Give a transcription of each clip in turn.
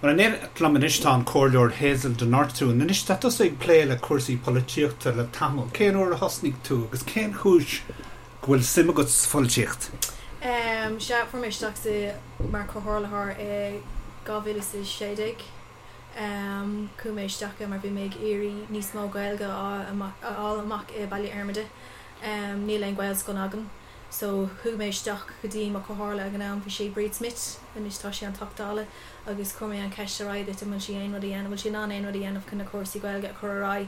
Bhuel, in éineacht liom anois tá an Comhairleoir Hazel de Nortúin. Anois, tá tusa ag plé le cúrsaí polaitíochta le tamall. Cén uair a thosnaigh tú agus cén chúis go bhfuil suim agat sa pholaitíocht? Sea, fuair mé isteach sa mar comhairleoir i 2016. Chuaigh mé isteach mar bhí mé ag iarraidh níos mó Gaeilge a fháil amach i Baile Fhormaide. Níl aon Ghaelscoil againn. So chuaigh mé isteach go dtí mo chomhairle ag an am, bhí sé Bríd Smith, anois tá sí an Teachta Dála, agus chuir mé an cheist ar aghaidh di an bhfuil sí aon rud a dhéanamh, bhfuil sí in ann aon rud a dhéanamh chun na cúrsaí Gaeilge a chur ar aghaidh.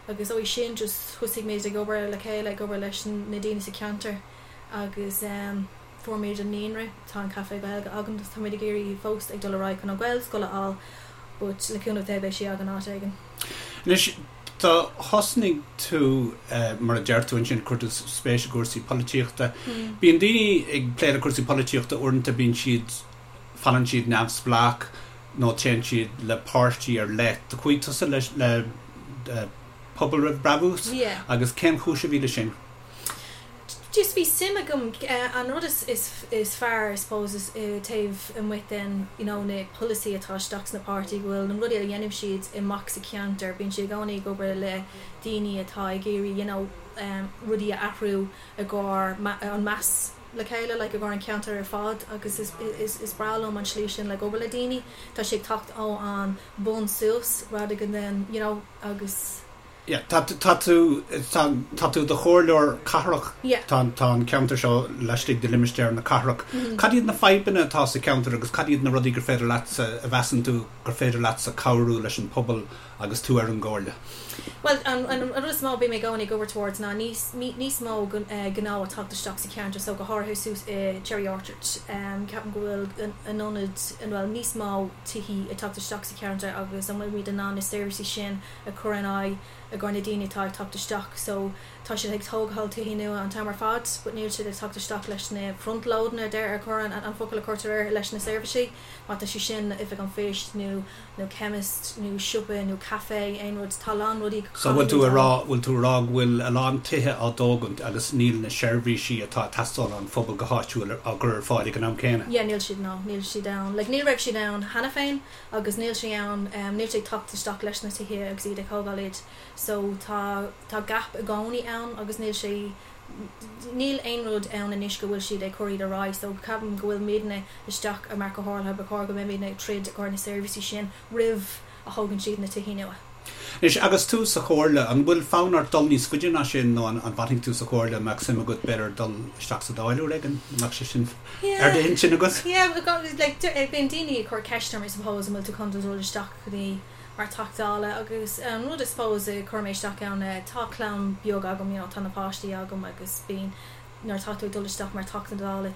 Agus ó sin just thosaigh muid ag obair le chéile, ag obair leis na daoine sa cheantar agus fuair muid an naíonra, tá an café Gaeilge againn agus tá muid ag iarraidh fós ag dul ar aghaidh chun an Ghaelscoil a fháil but le cúnamh Dé beidh sí againn áit éigin. Anois, Do thosnaigh tú, mar a deir tú ansin, chuir tú spéis i gcúrsaí polaitíochta. Bíonn daoine ag plé le cúrsaí polaitíochta, uaireanta bíonn siad, fanann siad neamhspleách nó téann siad le páirtí ar leith. Do chuaigh tusa le le Pobal Roimh Brabús agus cén chúis a bhí le sin? Just bhí suim agam, an rud is is fearr I suppose is taobh amuigh den you know na polasaí atá isteach sna páirtí go bhfuil na rudaí a dhéanann siad amach sa cheantar, bíonn siad i gcónaí ag obair le daoine atá ag iarraidh you know rudaí a athrú i gcomhair an meas le chéile like i gcomhair an ceantar ar fad agus is is is breá liom an slí sin like obair le daoine, tá sé ag teacht ó an bun suas rather than you know agus. Yeah, tá, tá tú, tá, tá tú i do chomhairleoir cathrach. Yeah. Tá, tá an ceantar seo laistigh de limistéar na cathrach. Cad iad na fadhbanna atá sa cheantar agus cad iad na rudaí gur féidir leatsa, a mheasann tú gur féidir leatsa cabhrú leis an pobal agus tú ar an gcomhairle? Bhuel, an, an, an rud is mó a bím i gcónaí ag obair towards ná níos, níos mó gnó ag teacht isteach sa cheantar so go háirithe suas i Cherry Orchard. Ceapaim go bhfuil an ionad, bhuel, níos mó tithí ag teacht isteach sa cheantar agus an bhfuilimid in ann na seirbhísí sin a chur in aghaidh i gcomhair na daoine atá ag teacht isteach so tá siad ag tógáil tithí nua an t-am ar fad but níl siad ag teacht isteach leis na front loading a deir a chur an an focal a chuirtear air leis na seirbhísí má tá sé sin oifig an phoist nó nó chemist nó siopa nó café aon rud tá a lán rudaí So bhfuil tú a rá bhfuil tú a rá go bhfuil a lán tithe á dtógaint agus níl na seirbhísí atá ag teastáil ón phobal go háitiúil á gcur ar fáil ag an am céanna? Yeah níl siad no níl siad ann like ní raibh siad ann cheana féin agus níl sé ann, níl sé ag teacht isteach leis na tithe agus iad ag thógáil iad so tá, tá gap i gcónaí ann agus níl sé, níl aon rud ann anois go bhfuil siad ag cur iad ar aghaidh so ceapaim go bhfuil muidne isteach mar comhairle, ba chóir go mbeidh muidne ag troid i gcomhair na seirbhísí sin roimh a thógann siad na tithe nua. Anois, agus tú sa Chomhairle, an bhfuil fonn ort dul níos faide ná sin nó an bhfanfaidh tú sa Chomhairle? An mbeadh suim agat, b'fhéidir, dul isteach sa Dáil uair éigin? An mbeadh sé sin ar d'intinn agat? Yeah, like, bíonn daoine ag cur ceist orm, I suppose, an bhfuil tú chun dul isteach go dtí mar Teachta Dála agus an rud I suppose a chuir mé isteach ann, tá clann beag agam, you know, tá na páistí agam agus bíonn, nuair atá tú ag dul isteach mar Teachta Dála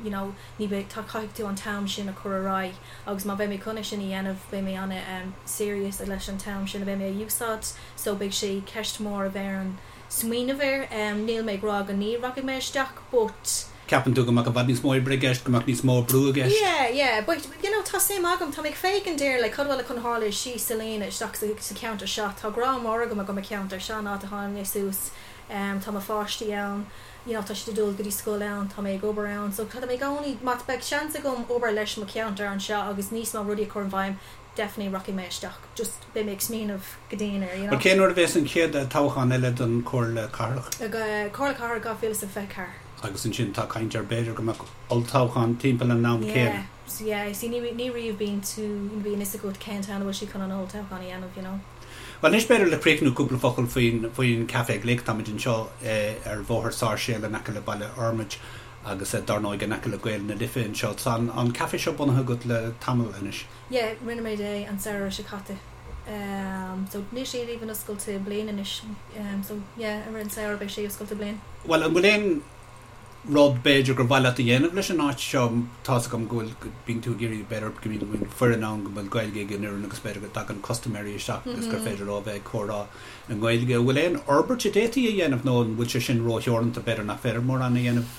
you know ní bheidh, tá, caithfidh tú an t-am sin a chur ar aghaidh agus má bheidh mé chun é sin a dhéanamh beidh mé ana serious leis an t-am sin a bheidh mé a úsáid so beidh sé ceist mór a bheidh orm smaoineamh air. Níl mé ag rá go ní rachaidh mé isteach but. Ceapann tú go mbeadh i bhfad níos mó oibre i gceist, go mbeadh níos mó brú i gceist? Yeah, yeah, but you know tá suim agam, tá mé ag féachaint ar like cad bhfuil chun tharlú síos sa líne isteach sa, sa cheantar seo, tá grá mór agam do mo cheantar, seo an áit a tháinig mé suas. Tá mo pháistí ann, you know, tá siad ag dul go dtí scoil ann, tá mé ag obair ann, so tá mé i gcónaí, má beidh seans agam obair leis mo cheantar anseo agus níos mó rudaí a chur in bhfeidhm, definitely rachaidh mé isteach, just beidh mé ag smaoineamh go dian air, you know. Bhuel, cén uair a bheas an chéad toghchán eile don Chomhairle Cathrach? Comhairle Cathrach 2024. Agus ansin tá caint ar b'fhéidir go mbeadh olltoghchán timpeall an am céanna. Yeah, yeah, see ní ní riamh bíonn tú, bíonn fhios agat cén t-am a bhfuil siad chun an olltoghchán a dhéanamh, you know. Bhuel anois b'fhéidir le críochnú cúpla focal faoin faoin Café Glic. Táimid anseo ar Bhóthar Sáirséal in aice le Baile Fhormaid agus dar ndóigh in aice le Gaeil na Life anseo. Tá an an café seo bunaithe agat le tamall anois. Yeah, rinne muid é an samhradh seo caite. So níl sé even oscailte bliain anois. So yeah, i rith an samhradh beidh sé oscailte bliain. Bhuel an bhfuil aon rud b'fhéidir gur mhaith leat a dhéanamh leis an áit seo. Tá's agam go bhfuil, go mbíonn tú ag iarraidh b'fhéidir go mbíonn foireann ann go bhfuil Gaeilge ag an fhoireann agus b'fhéidir go dtagann custaiméirí isteach agus gur féidir leo a bheith ag comhrá i nGaeilge. An bhfuil aon fhorbairt a d'fhéadfaí a dhéanamh nó an bhfuil sé sin rótheoranta, b'fhéidir nach féidir mórán a dhéanamh?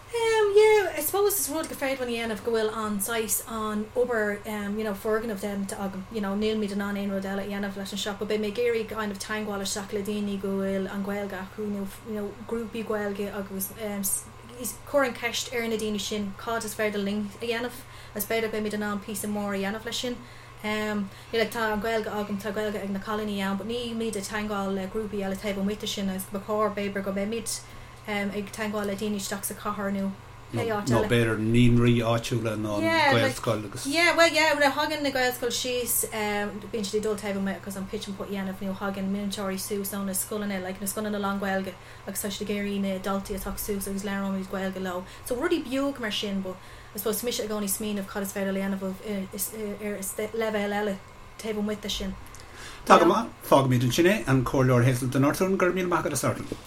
Em yeah, I suppose is rud gur féidir linn a dhéanamh go bhfuil an saghas an obair em you know foirgneamh déanta agam, you know nílimid in ann aon rud eile a dhéanamh leis an siopa. Beidh mé ag iarraidh kind of teagmháil isteach le daoine go bhfuil an Ghaeilge acu nó you know grúpaí Gaeilge agus cur an cheist ar na daoine sin cad is féidir linn a dhéanamh agus b'fhéidir beimid in ann píosa mór a dhéanamh leis sin. Um, you know, like tá an Ghaeilge agam, tá Gaeilge ag na cailíní ann, but nílimid ag teagmháil le grúpaí eile taobh amuigh de sin agus ba chóir b'fhéidir go mbeimid um, ag teagmháil le daoine isteach sa chathair nó pé áit Nó eile. b'fhéidir naíonraí áitiúla nó an Yeah, like, Gaelscoil agus. yeah, well yeah, nuair a thagann na Gaelscoil síos, um, bíonn siad ag dul taobh amuigh agus an pitch and putt a dhéanamh nó thagann múinteoirí suas ó na scoileanna, like na scoileanna lán-Ghaeilge agus tá siad ag iarraidh na daltaí a theacht suas agus labhróimid Gaeilge leo. So rudaí beag mar sin but I suppose tá mise i gcónaí ag smaoineamh cad is féidir le dhéanamh ar leibhéal eile taobh amuigh de sin. Tá go maith. Fágfaimid ansin é. An Comhairleoir Hazel de Nortúin, go raibh míle maith agat as labhairt linn.